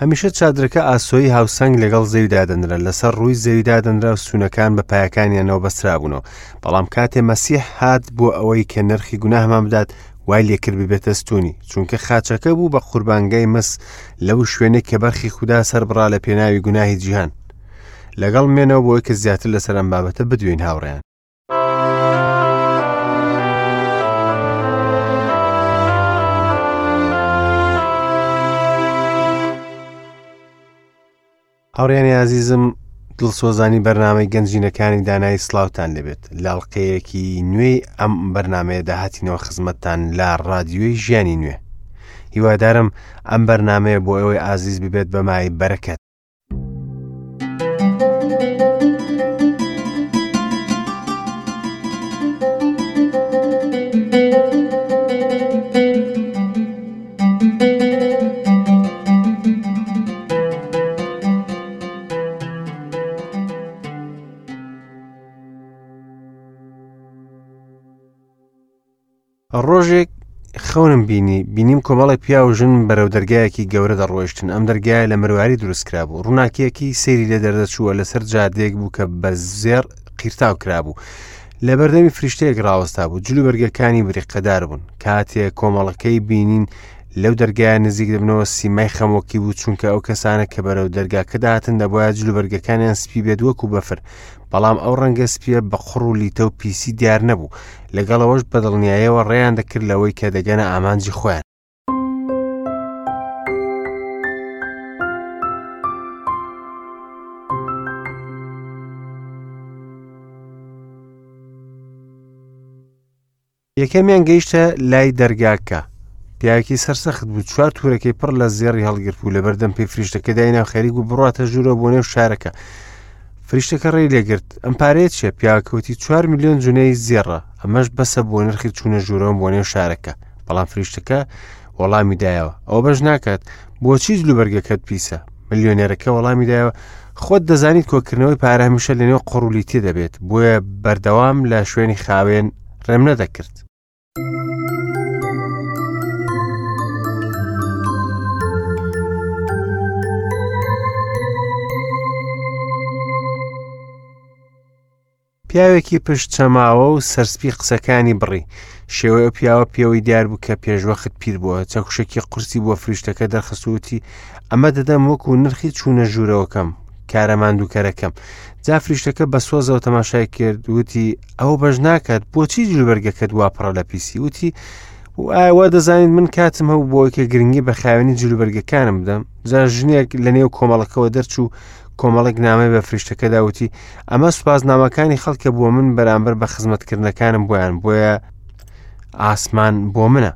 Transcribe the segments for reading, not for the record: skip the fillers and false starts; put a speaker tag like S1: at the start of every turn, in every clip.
S1: هەمیشە چادرەکە ئاسۆیی هاوسەنگ لەگەڵ زەوی دادەنرا، لەسەر ڕووی زەوی دادەنرا و ستوونەکان بە پایەکانیانەوە بەسترابوونەوە. بەڵام کاتێ مەسیح هات بۆ ئەوەی کە نرخی گوناهمان بدات، وای لێکرد ببێتە ستوونی، چونکە خاچەکە بوو بە قوربانگای مس لەو شوێنەی کە بەرخی خودا سەربڕا لە پێناوی گوناهی جیهان. لەگەڵ مێنەوە بۆی کە زیاتر لەسەر ئەم بابەتە بدوێین هاوڕێیان. هاوڕیانی ئازیزم دڵسۆزانی بەرنامەی گەنجینەکانی دانایی سلااوان لەبێت لاڵقەیەکی نوێی ئەم بەرنمەیە داهاتینەوە خزمەتتان لە رادیۆی ژیانی نوێ هیوادارم ئەم بەرنمەیە بۆ ئەوەی ئازیز ببێت بە مای بەرەکەت ڕۆژێک خەونم بینی بینیم کۆمەڵێک پیاو و ژن بەرەو دەرگایەکی گەورە دەڕۆیشتن ئەم دەرگایە لە مرواری دروست کرابوو ڕووناکیەکی سەیری لێ دەردەچووە لەسەر جادەیەک بوو کە بە زێڕ قیرتاو کرابوو لە بەردەمی فریشتەیەک ڕاوەستا بوو جلوبەرگەکانی بریقەدار بوون کاتێ کۆمەڵەکەی بینین لەو دەرگایە نزیک دەبنەوە سیمای خەمۆکی بوو چونکە ئەو کەسانە کە بەرەو دەرگاکە دەهاتن دەبواە جلوبەرگەکانیان سپی بێت وەکو بەفر بەڵام ئەو ڕەنگە سپیە بە قوڕ و لیتە و پیسی دیار نەبوو لەگەڵ ئەوەش بە دڵنیایەوە ڕێیان دەکرد لەوەی کە دەگەنە ئامانجی خۆیان. یەکەمیان گەیشتە لای دەرگاکە پیاوێکی سەرسەخت بوو چوار تورەکەی پڕ لە زێڕی هەڵگرت بوو لەبەردەم پێی فریشتەکە داینا و خەریک بوو بڕاتە ژوورەوە بۆ نێو شارەکە فریشتەکە ڕێی لێگرت ئەم پارەیە چیە پیاوەکەوتی چوار میلیۆن جونەی زێڕە ئەمەش بەسە بۆ نرخی چوونە ژوورەوە بۆ نێو شارەکە بەڵام فریشتەکە وەڵامی دایەوە ئەوە بەش ناکات بۆچی جلوبەرگەکەت پیسە ملیۆنێرەکە وەڵامی دایەوە خۆت دەزانیت کۆکردنەوەی پارە هەمیشە لەنێو قڕولیتی دەبێت بۆیە بەردەوام لە شوێنی خاوێن ڕێم نەدەکرد. پیاوێکی پشت چەماوە و سەرسپی قسەکانی بڕی شێوەی ئەو پیاوە پێوەی دیار بوو کە پێشوەخت پیر بووە چەکوشێکی قورسی بۆ فریشتەکە دەرخستوتی ئەمە دەدەم وەکو نرخی چوونە ژوورەوەکەم کارە ماندووکەرەکەم جا فریشتەکە بە سۆزەوە تەماشای کرد وتی ئەو بەش ناکات بۆچی جلوبەرگەکەت وا پڕە لە پیسی وتی و ئایا وا دەزانیت من کاتم هەبوو بۆ کە گرنگی بە خاوێنی جلوبەرگەکانم بدەم جا ژنێک لە نێو کۆمەڵەکەوە دەرچوو کۆمەڵێک نامەی بە فریشتەکەدا وتی ئەمە سوپاسنامەکانی خەڵکە بۆ من بەرامبەر بە خزمەتکردنەکانم بۆیان بۆیە ئاسمان بۆ منە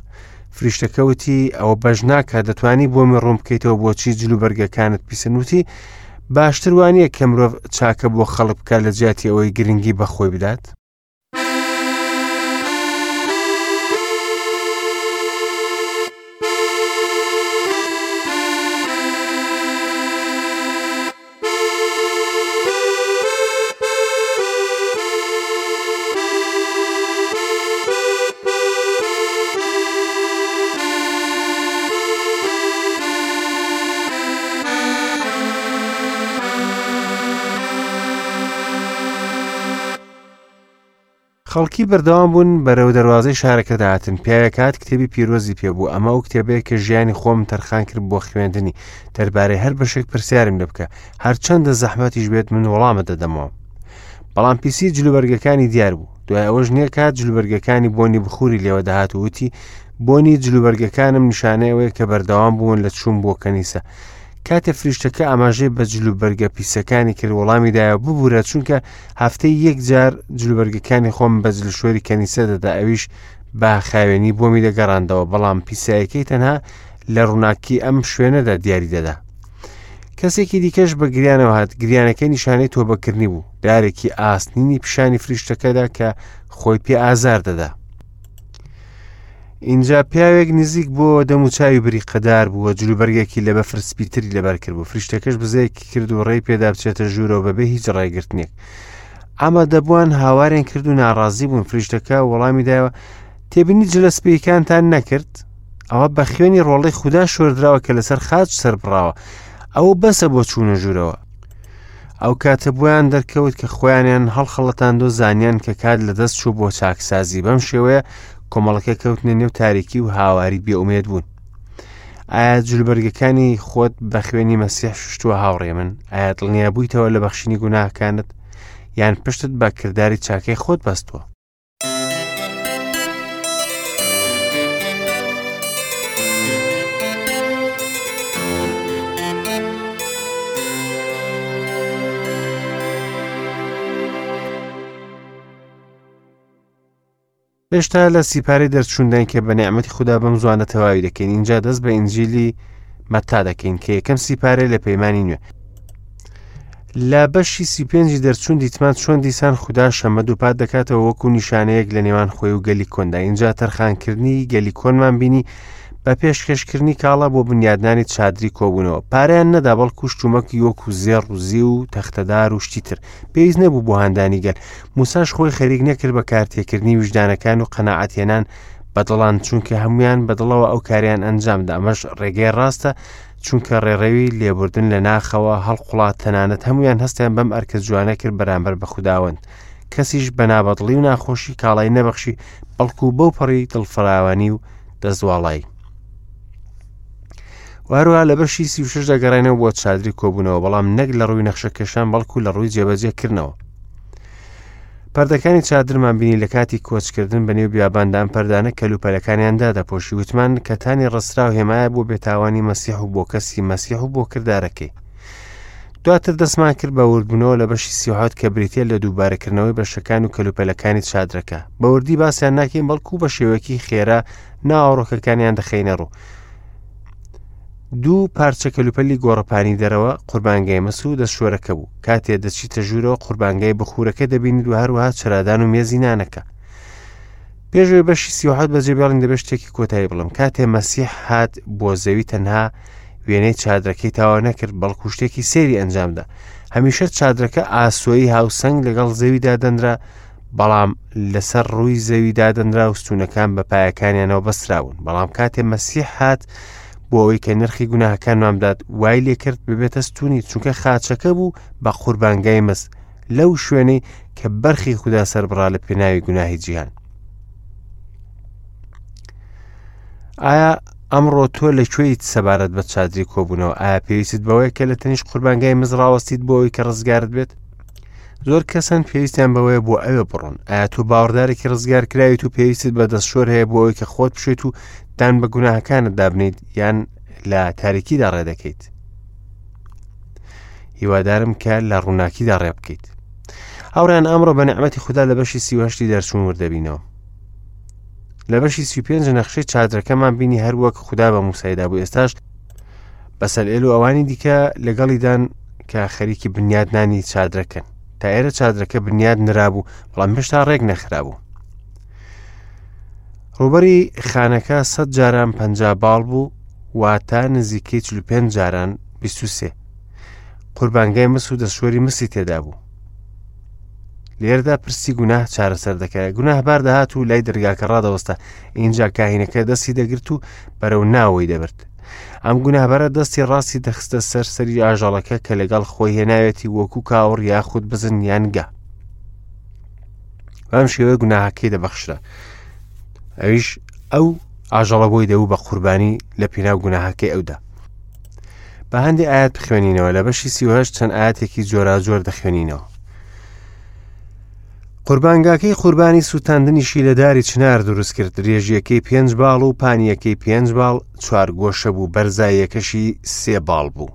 S1: فریشتەکە وتی ئەوە بەش ناکات دەتوانی بۆمی ڕوون بکەیتەوە بۆچی جلوبەرگەکانت پیسن وتی باشتر وانە کە مرۆڤ چاکە بۆ خەڵک بکات لە جیاتی ئەوەی گرنگی بەخۆی بدات خەڵکی بەردەوام بوون بەرەو دەروازەی شارەکە دەهاتن، پیاوێک هات کتێبی پیرۆزی پێ بوو، ئەمە ئەو کتێبەیە کە ژیانی خۆم تەرخان کرد بۆ خوێندنی، دەربارەی هەر بەشێک پرسیارم لێ بکە، هەرچەندە زەحمەتیش بێت من وەڵامت دەدەمەوە. بەڵام پیسی جلوبەرگەکانی دیار بوو. دوای ئەوە ژنێک هات جلوبەرگەکانی بۆنی بخوری لێوە دەهات و وتی، بۆنی جلوبەرگەکانم نیشانەی ئەوەیە کە بەردەوام بوون لە چوون بۆ کەنیسە. کاتێ فریشتەکە ئاماژەی بە جلوبەرگە پیسەکانی کرد وەڵامی دایەوە ببورە چونکە هەفتەی یەک جار جلوبەرگەکانی خۆم بە جلشۆری کەنیسە دەدا ئەویش بە خاوێنی بۆمی دەگەڕاندەوە بەڵام پیسایەکەی تەنها لە ڕووناکی ئەم شوێنەدا دیاری دەدا کەسێکی دیکەش بە گریانەوە هات گریانەکەی نیشانەی تۆبەکردنی بوو دارێکی ئاسنینی پیشانی فریشتەکەدا کە خۆی پێ ئازار دەدا ئینجا پیاوێک نزیک بۆ دەم و چاوی بریقەدار بووە جلوبەرگێکی لە بەفر سپیتری لەبەر کرد بوو فریشتەکەش بزەیەکی کرد و ڕێی پێدا بچێتە ژوورەوە بەبێ هیچ ڕێگرتنێک ئامادەبووان هاوارێن کرد و ناڕازی بوون فریشتەکە وەڵامی دایەوە تێبینی جلە سپیەکانتان نەکرد ئەوە بە خوێنی ڕۆڵی خودا شۆردراوە کە لەسەر خاچ سەربڕاوە. ئەوە بەسە بۆ چوونە ژوورەوە. ئەو کاتە بۆیان دەرکەوت کە خۆیانیان هەڵخەڵەتاند و زانیان کە کات لەدەست چوو بۆ چاکسازی. بەم شێوەیە کۆمەڵەکە کەوتنە نێو تاریکی و هاواری بێئومێد بوون. ئایا جلوبەرگەکانی خۆت بە خوێنی مەسیح شوشتووە هاوڕێ من؟ ئایا دڵنیا بوویتەوە لە بەخشینی گوناهەکانت یان پشتت بە کرداری چاکەی خۆت بەستووە؟ هێشتا لە سیپارەی دەرچوونداین کە بە نیعمەتی خودا بەم زوانە تەواوی دەکەین. ئینجا دەست بە ئینجیلی مەتا دەکەین کە یەکەم سیپارەیە لە پەیمانی نوێ. لە بەشی 35ی دەرچوون دیتمان چۆن دیسان خودا شەمە دووپات دەکاتەوە وەکو نیشانەیەک لە نێوان خۆی و گەلی کۆندا. ئینجا تەرخانکردنی گەلی کۆنمان بینی بە پێشکەشکردنی کاڵا بۆ بنیادنانی چادری کۆبوونەوە. پارەیان نەدا بەڵکو شتومەکی وەکو زێڕ و زیو و تەختەدار و شتی تر پێویست نەبوو بۆ هاندانی گەل. موساش خۆی خەریک نەکرد بە کارتێکردنی ویژدانەکان و قەناعەتهێنان بە دڵان، چونکە هەمویان بە دڵەوە ئەو کاریان ئەنجامدا. ئەمەش ڕێگەی ڕاستە، چونکە ڕێڕەوی لێبوردن لە ناخەوە هەڵقوڵا. تەنانەت هەمویان هەستیان بەم ئەرکە جوانە کرد بەرامبەر بە خوداوەند. کەسیش بە نابەدڵی و ناخۆشی کاڵای نەبەخشی، بەڵکو بەو پەڕی دڵفراوانی و دەستواڵایی. و هەروەها لە بەشی 36 دەگەڕێنەوە بۆ چادری کۆبوونەوە، بەڵام نەک لە ڕووی نەخشەکێشان بەڵکو لە ڕووی جێبەجێکردنەوە. پەردەکانی چادرمان بینی لە کاتی کۆچکردن بە نێو بیاباندا. ئەم پەردانە کەلوپەلەکانیان دادەپۆشی. وتمان کەتانی ڕستراو هێمایە بۆ بێتاوانی مەسیح و بۆ کەسی مەسیح و بۆ کردارەکەی. دواتر دەستمان کرد بە وردبوونەوە لە بەشی 37 کە بریتە لە دووبارەکردنەوەی بەشەکان و کەلوپەلەکانی چادرەکە. بە وردی باسیان ناکەین بەڵکو بە شێوەیەکی خێرا ناوەڕۆکەکانیان دەخەینە ڕوو. دوو پارچە کەلوپەلی گۆڕەپانی دەرەوە قوربانگای مس و دەستشۆرەکە بوو. کاتێ دەچیتە ژوورەوە قوربانگای بخورەکە دەبینیت و هەروەها چرادان و مێزی نانەکە. پێشەوەی بەشی 37 بەجێ بێڵین دەبێت شتێکی کۆتایی بڵم. کاتێ مەسیح هات بۆ زەوی تەنها وێنەی چادرەکەی تاوا نەکرد، بەڵکو شتێکی سەیری ئەنجامدا. هەمیشە چادرەکە ئاسۆیی هاوسەنگ لەگەڵ زەویدا دەنرا، بەڵام لەسەر ڕووی زەوی دادەنرا و ستونەکان بە پایەکانیانەوە بەسترابوون. بەڵام کاتێ مەسیح هات بۆ ئەوەی کە نرخی گوناهەکانمان بدات، وای لێکرد ببێتە ستونی، چونکە خاچەکە بوو بە قوربانگای مس لەو شوێنەی کە بەرخی خودا سەربڕا لە پێناوی گوناهی جیهان. ئایا ئەمڕۆ تۆ لە کوێیت سەبارەت بە چادری کۆبوونەوە؟ ئایا پێویستت بەوەیە کە لە تەنیشت قوربانگای مز ڕاوەستیت بۆ ئەوەی کە ڕزگارت بێت؟ زۆر کەسن پێویستیان بەوەیە بۆ ئەوێ بڕۆن. ئایا تۆ باوەڕدارێکی ڕزگار کراویت و پێویستت بە دەستشۆر هەیە بۆ ئەوەی کە خۆت بشێت و دان بە گوناهەکانت دابنیت یان لە تاریکیدا ڕێ دەکەیت؟ هیوادارم کە لە ڕووناکیدا ڕێ بکەیت. هاوڕێیان ئەمڕۆ بە نیعمەتی خودا لە بەشی 38 دەرچوون وردەبینەوە. لە بەشی 35 نەخشەی چادرەکەمان بینی هەر وەک خودا بە موسای دابوو. ئێستاش بەسەلئێل و ئەوانی دیکە لەگەڵیدان کە خەریکی بنیادنانی چادرەکەن. تا ئێرە چادرەکە بنیاد نرابوو، بەڵام هێشتا ڕێک نەخرابوو. ڕووبەری خانەکە 100 جاران 50 باڵ بوو، واتە نزیکەی 45 جاران 23. قوربانگای مس و دەستشۆری مسی تێدا بوو. لێرەدا پرسی گوناه چارەسەر دەکرا. گوناهبار دەهات و لای دەرگاکە ڕادەوەستا، ئینجا کاهینەکە دەستی دەگرت و بەرەو ناوەی دەبرد. ئەم گوناهبارە دەستی ڕاستی دەخستە سەر سەری ئاژەڵەکە کە لەگەڵ خۆی هێناوێتی، وەکو کاوڕ یاخود بزن یان گا. بەم شێوەیە گوناهەکەی دەبەخشرا. ئەویش ئەو ئاژەڵە بۆی دەبوو بە قوربانی لە پێناو گوناهەکەی ئەودا. بە هەندێک ئاەت بخوێنینەوە. لە بەشی 38 چەند ئاەتێکی جۆراجۆر دەخوێنینەوە. قوربانگاکەی قوربانی سووتاندنیشی لە داری چنار دروست کرد، درێژیەکەی 5 باڵ و پانیەکەی 5 باڵ، چوار گۆشە بوو، بەرزاییەکەشی 3 باڵ بوو.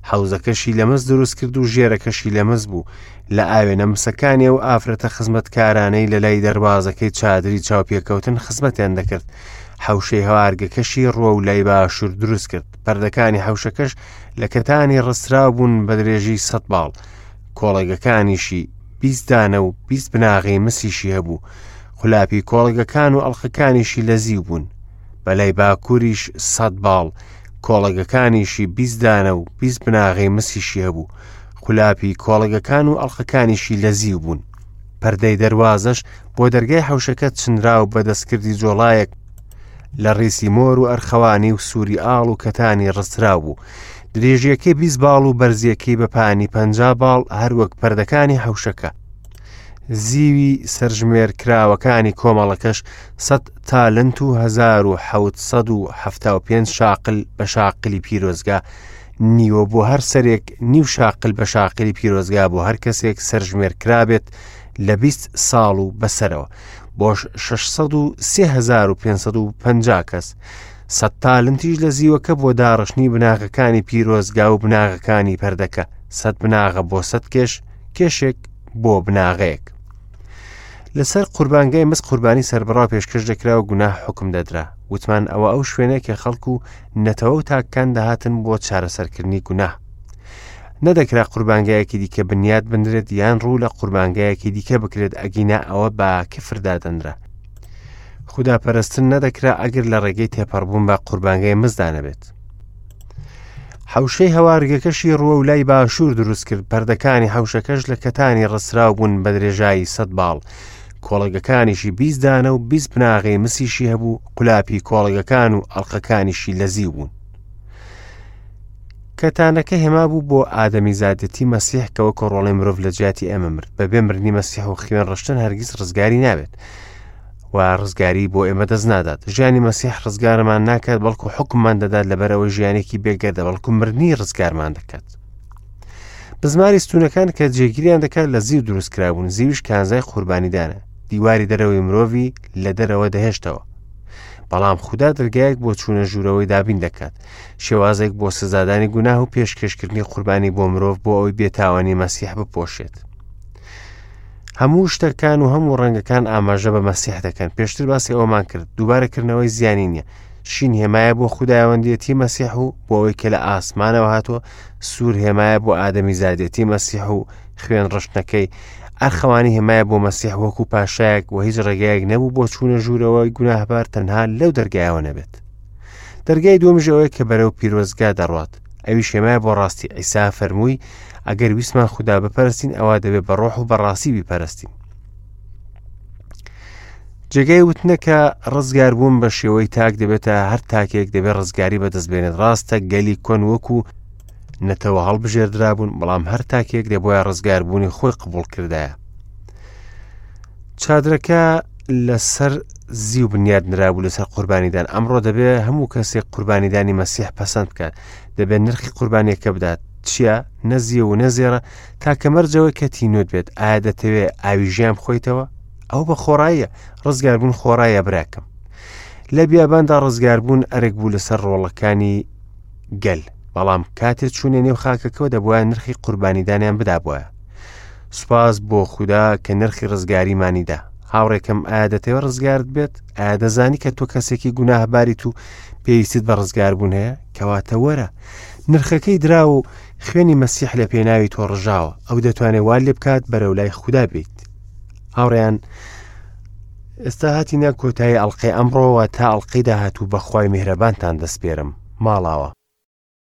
S1: حەوزەکەشی لە مس دروست کرد و ژێرەکەشی لە مس بوو. لە ئاوێنە مسەکانی و ئافرەتە خزمەتکارانەی لە لای دەروازەکەی چادری چاوپێکەوتن خزمەتیان دەکرد. حەوشەی هەوارگەکەشی ڕووە و لای باشوور دروست کرد. پەردەکانی حەوشەکەش لە کەتانی ڕستراو بوون بە درێژی 100 باڵ. کۆڵەگەکانیشی 20 دانە و 20 بناغەی مسیشی هەبوو. قولاپی کۆڵەگەکان و ئەڵقەکانیشی لە زیو بوون. بە لای باکووریش 100 باڵ، کۆڵەگەکانیشی 20 دانە و 20 بناغەی مسیشی هەبوو. قولاپی کۆڵەگەکان و ئەڵقەکانیشی لە زیو بوون. پەردەی دەروازەش بۆ دەرگای حەوشەکە چنرا و بە دەستکردی جۆڵایەک لە ڕیسی مۆر و ئەرخەوانی و سووری ئاڵ و کەتانی ڕستراو بوو. درێژیەکەی 20 باڵ و بەرزیەکەی بە پانی 50 باڵ هەروەک پەردەکانی حەوشەکە. زیوی سەرژمێر کراوەکانی کۆمەڵەکەش 100 تالنت و 1775 شاقل بە شاقلی پیرۆزگا نیوە بۆ هەر سەرێک نیو شاقل بە شاقلی پیرۆزگا بۆ هەر کەسێک سەرژمێر کرابێت لە 20 ساڵ و بەسەرەوە بۆش 603,550 کەس. سەد تالنتیش لە زیوەکە بۆ داڕشتنی بناغەکانی پیرۆزگا و بناغەکانی پەردەکە، سەد بناغە بۆ سەد کێش، کێشێک بۆ بناغەیەک. لەسەر قوربانگای مس قوربانی سەربڕاو پێشکەش دەکرا و گوناه حکم دەدرا. وتمان ئەوە ئەو شوێنەیە کە خەڵک و نەتەوە و تاکەکان دەهاتن بۆ چارەسەرکردنی گوناه. نەدەکرا قوربانگایەکی دیکە بنیات بنرێت یان ڕوو لە قوربانگایەکی دیکە بکرێت ئەگینا ئەوە بە کفر دادەنرا. خودا پەرستن نەدەکرا ئەگەر لە ڕێگەی تێپەڕبوون بە قوربانگای مزدا نەبێت. حەوشەی هەوارگەکەشی ڕووە و لای باشوور دروست کرد پەردەکانی حەوشەکەش لە کەتانی ڕستراو بوون بە درێژایی سەد باڵ کۆڵەگەکانیشی 20 دانە و 20 بناغەی مسیشی هەبوو قولاپی کۆڵەگەکان و ئەڵلقەکانیشی لە زیو بوون. کەتانەکە هێما بوو بۆ ئادەمیزادێتی مەسیح کە وەکو ڕۆڵەی مرۆڤ لە جیاتی ئێمە مرد بەبێ مردنی مەسیح و خوێن ڕشتن هەرگیز ڕزگاری نابێت و ڕزگاری بۆ ئێمە دەست نادات ژیانی مەسیح ڕزگارمان ناکات بەڵکو حکوممان دەدات لەبەرەوە ژیانێکی بێگەردە بەڵکو مردنی ڕزگارمان دەکات بزماری ستونەکان کە جێگیریان دەکات لە زیو دروست کرابوون زیوش کانزای قوربانیدانە دیواری دەرەوەی مرۆڤی لە دەرەوە دەهێشتەوە بەڵام خودا دەرگایەک بۆ چوونە ژوورەوەی دابین دەکات شێوازێک بۆ سزادانی گوناه و پێشکەشکردنی قوربانی بۆ مرۆڤ بۆ ئەوەی بێتاوانی مەسیح بپۆشێت هەموو شتەکان و هەموو ڕەنگەکان ئاماژە بە مەسیح دەکەن پێشتر باسی ئەومان کرد دووبارەکردنەوەی زیانی نییە شین هێمایە بۆ خودایوەندێتی مەسیح و بۆ ئەوەی کە لە ئاسمانەوە هاتووە سوور هێمایە بۆ ئادەمی زادێتی مەسیح و خوێن ڕشتنەکەی ئەرخەوانی هێمایە بۆ مەسیح وەکو پاشایەک و هیچ ڕێگایەک نەبوو بۆ چوونە ژوورەوەی گوناهبار تەنها لەو دەرگایەوە نەبێت دەرگای دووەمیش ئەوەیە کە بەرەو پیرۆزگا دەڕوات ئەویش هێمایە بۆ ڕاستی عیسا فەرمووی ئەگەر ویستمان خودا بپەرستین ئەوە دەبێت بە ڕۆح و بەڕاستی بیپەرستین جێگای وتنە کە ڕزگاربوون بە شێوەی تاک دەبێتە هەر تاکێک دەبێت ڕزگاری بەدەست بێنێت ڕاستە گەلی کۆن وەکو نەتەوە هەڵبژێردرابوون بەڵام هەر تاکێک دەبواە ڕزگاربوونی خۆی قبول کردایە چادرەکە لەسەر زیو بنیاد نرابوو لەسەر قوربانیدان ئەمڕۆ دەبێ هەموو کەسێک قوربانیدانی مەسیح پەسەند بکات دەبێت نرخی قوربانیەکە بدات چییە نەزیە و نەزێڕە تاکە مەرجەوەی کە تینوت بێت ئایا دەتەوێ ئاوی ژیان بخۆیتەوە ئەو بە خۆڕاییە ڕزگاربوون خۆڕایە براکەم لە بیاباندا ڕزگاربوون ئەرک بوو لەسەر ڕۆڵەکانی گەل بەڵام کاتێ چوونە نێو خاکەکەەوە دەبواە نرخی قوربانیدانیان بدابایە سوپاس بۆ خودا کە نرخی ڕزگاریمانی دا هاوڕێکەم ئایا دەتەوێت ڕزگارت بێت ئایا دەزانی کە تۆ کەسێکی گوناهباریت و پێویستت بە ڕزگاربوون هەیە کەواتە وەرە نرخەکەی درا و خوێنی مەسیح لە پێناوی تۆ ڕژاوە ئەو دەتوانێت وا لێ بکات بەرەو لای خودا بیت هاوڕێیان ئێستا هاتینە کۆتایی ئەڵلقەی ئەمڕۆوە تا ئەڵلقەی داهاتوو بەخوای میهرەبانتان دەسپێرم ماڵاوە.